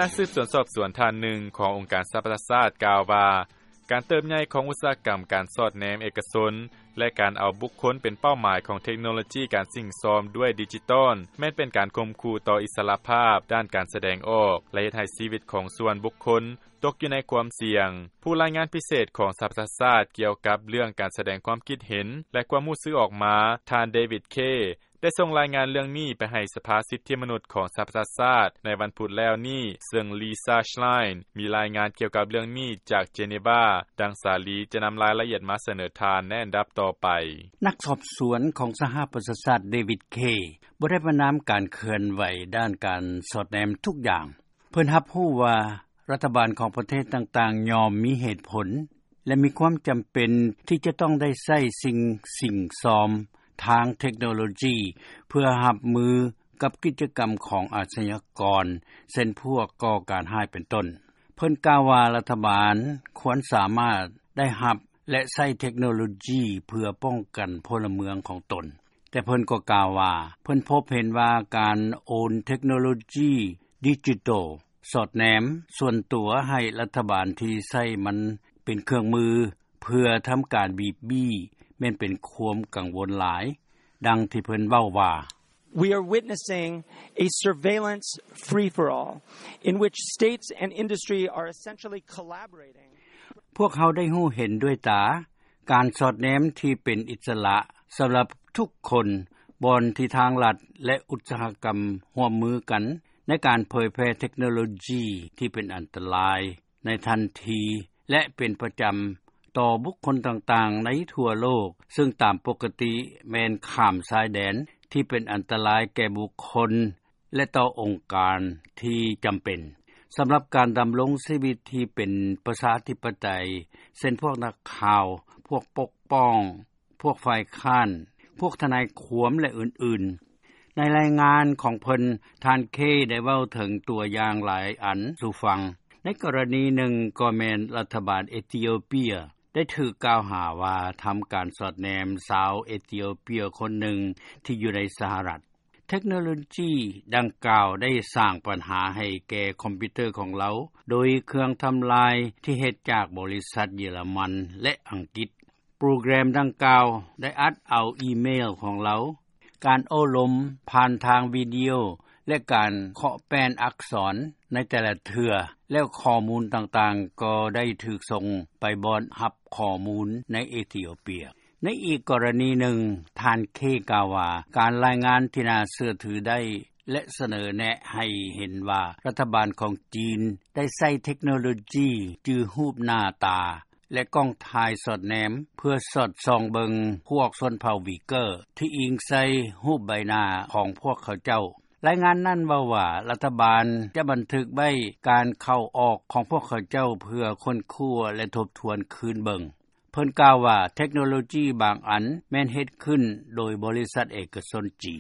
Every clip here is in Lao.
ນັກສືບສວນສອບສວນທ່ານໜຶ່ງຂອງອົງການສະຫະປະຊາຊາດກ່າວວ່າ ການເຕີບໃຫຍ່ຂອງອຸດສາຫະກຳການສອດແນມເອກະຊົນ ແລະ ການເອົາບຸກຄົນເປັນເປົ້າໝາຍຂອງເທັກໂນໂລຈີການສິ້ງຊອມດ້ວຍດິຈິຕອນ ແມ່ນເປັນການຂົ່ມຂູ່ຕໍ່ອິດສະຫຼະພາບດ້ານການສະແດງອອກ ແລະ ເຮັດໃຫ້ຊີວິດຂອງສ່ວນບຸກຄົນຕົກຢູ່ໃນຄວາມສ່ຽງ. ຜູ້ລາຍງານພິເສດຂອງສະຫະປະຊາຊາດກ່ຽວກັບເລື່ອງການສະແດງຄວາມຄິດເຫັນ ແລະ ຄວາມຮູ້ສຶກອອກມາ ທ່ານ David Kaye ໄດ້ສົ່ງລາຍງານເລື່ອງນີ້ໄປໃຫ້ສະພາສິດທິມະນຸດຂອງສະຫະປະຊາຊາດໃນວັນພຸດແລ້ວນີ້ ເຊິ່ງ Lisa Schlein ມີລາຍງານກ່ຽວກັບເລື່ອງນີ້ຈາກ Geneva ດັ່ງສາລີຈະນຳລາຍລະອຽດມາສະເໜີທ່ານໃນອັນດັບຕໍ່ໄປ. ນັກສອບສວນຂອງສະຫະປະຊາຊາດ David Kaye ບໍ່ໄດ້ປະນາມການເຄື່ອນໄຫວດ້ານການສອດແນມທຸກຢ່າງ. ເພິ່ນຮັບຮູ້ວ່າລັດຖະບານຂອງປະເທດຕ່າງໆ ຍ່ອມມີເຫດຜົນ ແລະ ມີຄວາມຈຳເປັນທີ່ຈະຕ້ອງໄດ້ໃຊ້ສິ່ງສິ້ງຊອມທາງເທັກໂນໂລຈີ ເພື່ອຮັບມືກັບກິດຈະກຳຂອງອາຊະຍາກອນ ເຊັ່ນພວກກໍ່ການຮ້າຍເປັນຕົ້ນ. ເພິ່ນກ່າວວ່າລັດຖະບານຄວນສາມາດໄດ້ຮັບ ແລະ ໃຊ້ເທັກໂນໂລຈີເພື່ອປ້ອງກັນພົນລະເມືອງຂອງຕົນ. ແຕ່ເພິ່ນກໍກ່າວວ່າ ເພິ່ນພົບເຫັນວ່າການໂອນເທັກໂນໂລຈີດິຈິຕອນສອດແນມສ່ວນຕົວໃຫ້ລັດຖະບານທີ່ໃຊ້ມັນເປັນເຄື່ອງມືເພື່ອທຳການບີບບີ້ ແມ່ນເປັນຄວາມກັງວົນຫຼາຍ. ດັ່ງທີ່ເພິ່ນເວົ້າວ່າ: We are witnessing a surveillance free-for-all in which states and industry are essentially collaborating. ພວກເຮົາໄດ້ຮູ້ເຫັນດ້ວຍຕາ ການສອດແນມທີ່ເປັນອິດສະຫຼະສຳລັບທຸກຄົນ ບ່ອນທີ່ທາງລັດ ແລະ ອຸດສາຫະກຳຮ່ວມມືກັນໃນການເຜີຍແຜ່ເທັກໂນໂລຈີທີ່ເປັນອັນຕະລາຍໃນທັນທີ ແລະ ເປັນປະຈຳຕໍ່ບຸກຄົນຕ່າງໆໃນທົ່ວໂລກ ເຊິ່ງຕາມປົກກະຕິແມ່ນຂ້າມຊາຍແດນທີ່ເປັນອັນຕະລາຍແກ່ບຸກຄົນ ແລະ ຕໍ່ອົງການທີ່ຈຳເປັນ ສຳລັບການດຳລົງຊີວິດທີ່ເປັນປະຊາທິປະໄຕ ເຊັ່ນພວກນັກຂ່າວ, ພວກປົກປ້ອງ, ພວກຝ່າຍຄ້ານ, ພວກທະນາຍຄວາມ ແລະ ອື່ນໆ. ໃນລາຍງານຂອງເພິ່ນ, ທ່ານ Kaye ໄດ້ເວົ້າເຖິງຕົວຢ່າງຫຼາຍອັນສູ່ຟັງ. ໃນກໍລະນີໜຶ່ງກໍແມ່ນລັດຖະບານເອທິໂອເປຍໄດ້ຖືກກ່າວຫາວ່າທຳການສອດແນມຊາວເອທິໂອເປຍຄົນໜຶ່ງທີ່ຢູ່ໃນສະຫະລັດ. ເທັກໂນໂລຈີດັ່ງກ່າວໄດ້ສ້າງບັນຫາໃຫ້ແກ່ຄອມພິວເຕີຂອງລາວ ໂດຍເຄື່ອງທຳລາຍທີ່ເຮັດຈາກບໍລິສັດເຢຍລະມັນ ແລະ ອັງກິດ. ໂປຣແກຣມດັ່ງກ່າວໄດ້ອັດເອົາອີເມວຂອງລາວ, ການໂອ້ລົມຜ່ານທາງວິດີໂອ ແລະ ການເຄາະແປ້ນອັກສອນໃນແຕ່ລະເທື່ອ, ແລ້ວຂໍ້ມູນຕ່າງໆກໍໄດ້ຖືກສົ່ງໄປບ່ອນຮັບຂໍ້ມູນໃນເອທິໂອເປຍ. ໃນອີກກໍລະນີໜຶ່ງ, ທ່ານ Kaye ກ່າວວ່າ ການລາຍງານທີ່ໜ້າເຊື່ອຖືໄດ້ ແລະ ສະເໜີແນະໃຫ້ເຫັນວ່າລັດຖະບານຂອງຈີນໄດ້ໃຊ້ເທັກໂນໂລຈີຈື່ຮູບໜ້າຕາ ແລະ ກ້ອງຖ່າຍສອດແນມ ເພື່ອສອດສ່ອງເບິ່ງພວກຊົນເຜົ່າວີເກີ ທີ່ອີງໃສ່ຮູບໃບໜ້າຂອງພວກເຂົາເຈົ້າ. ລາຍງານນັ້ນເວົ້າວ່າ ລັດຖະບານຈະບັນທຶກໄວ້ການເຂົ້າອອກຂອງພວກເຂົາເຈົ້າ ເພື່ອຄົ້ນຄວ້າ ແລະ ທົບທວນຄືນເບິ່ງ. ເພິ່ນກ່າວວ່າ ເທັກໂນໂລຈີບາງອັນແມ່ນເຮັດຂຶ້ນໂດຍບໍລິສັດເອກະຊົນຈີນ.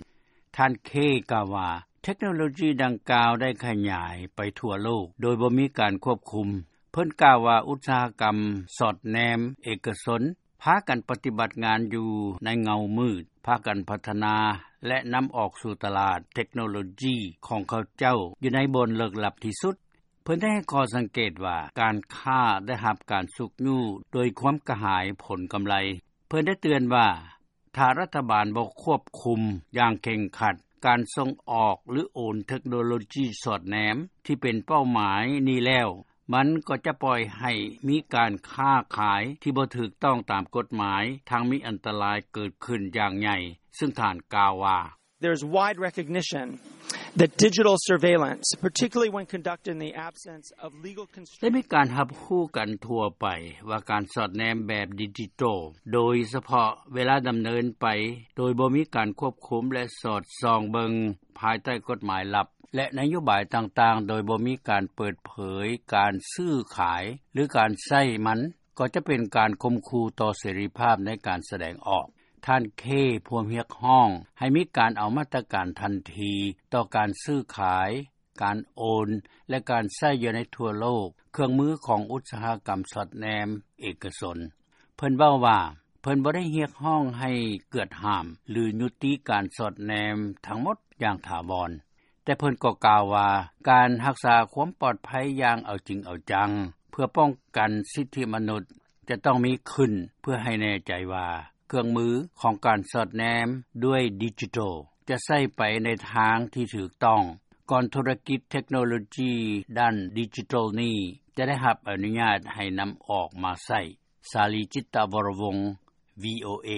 ທ່ານ Kaye ກ່າວວ່າ ເທັກໂນໂລຈີດັ່ງກ່າວໄດ້ຂະຫຍາຍໄປທົ່ວໂລກໂດຍບໍ່ມີການຄວບຄຸມ. ເພິ່ນກ່າວວ່າ ອຸດສາຫະກຳສອດແນມເອກະຊົນພາກັນປະຕິບັດງານຢູ່ໃນເງົາມືດ, ພາກັນພັດທະນາ ແລະ ນຳອອກສູ່ຕະຫຼາດເທັກໂນໂລຈີຂອງເຂົາເຈົ້າຢູ່ໃນບ່ອນເລິກລັບທີ່ສຸດ. ເພິ່ນໄດ້ໃຫ້ຂໍ້ສັງເກດວ່າ ການຄ້າໄດ້ຮັບການຊຸກຍູ້ໂດຍຄວາມກະຫາຍຜົນກຳໄລ. ເພິ່ນໄດ້ເຕືອນວ່າ ຖ້າລັດຖະບານບໍ່ຄວບຄຸມຢ່າງເຄັ່ງຄັດການສົ່ງອອກ ຫຼື ໂອນເທັກໂນໂລຈີສອດແນມທີ່ເປັນເປົ້າໝາຍນີ້ແລ້ວ, ມັນກໍຈະປ່ອຍໃຫ້ມີການຄ້າຂາຍທີ່ບໍ່ຖືກຕ້ອງຕາມກົດໝາຍ, ທັງມີອັນຕະລາຍເກີດຂຶ້ນຢ່າງໃຫຍ່, ເຊິ່ງທ່ານກ່າວວ່າ: There is wide recognition that digital surveillance, particularly when conducted in the absence of legal constraint, ໄດ້ມີການຮັບຮູ້ກັນທົ່ວໄປວ່າການສອດແນມແບບດິຈິຕອນ ໂດຍສະເພາະເວລາດຳເນີນໄປໂດຍບໍ່ມີການຄວບຄຸມ ແລະ ສອດສ່ອງເບິ່ງພາຍໃຕ້ກົດໝາຍລັບ ແລະ ນະໂຍບາຍຕ່າງໆ ໂດຍບໍ່ມີການເປີດເຜີຍການຊື້ຂາຍ ຫຼື ການໃຊ້ມັນ ກໍຈະເປັນການຂົ່ມຂູ່ຕໍ່ເສລີພາບໃນການສະແດງອອກ. ທ່ານ Kaye ພວມຮຽກຮ້ອງໃຫ້ມີການເອົາມາດຕະການທັນທີຕໍ່ການຊື້ຂາຍ, ການໂອນ ແລະ ການໃຊ້ຢູ່ໃນທົ່ວໂລກເຄື່ອງມືຂອງອຸດສາຫະກຳສອດແນມເອກະຊົນ. ເພິ່ນເວົ້າວ່າ ເພິ່ນບໍ່ໄດ້ຮຽກຮ້ອງໃຫ້ກວດຫ້າມ ຫຼື ຍຸຕິການສອດແນມທັງໝົດຢ່າງຖາວອນ. ແຕ່ເພິ່ນກໍກ່າວວ່າ ການຮັກສາຄວາມປອດໄພ ຢ່າງເອົາຈິງເອົາຈັງ ເພື່ອປ້ອງກັນສິດທິມະນຸດ ຈະຕ້ອງມີຂຶ້ນ ເພື່ອໃຫ້ແນ່ໃຈວ່າ ເຄື່ອງມືຂອງການສອດແນມ ດ້ວຍດິຈິໂຕລ ຈະໃຊ້ໄປໃນທາງທີ່ຖືກຕ້ອງ ກ່ອນທຸລະກິດເທັກໂນໂລຈີ ດ້ານດິຈິໂຕລນີ້ ຈະໄດ້ຮັບອະນຸຍາດ ໃຫ້ນຳອອກມາໃຊ້. ສາລີ ຈິດຕະວໍລະວົງ VOA.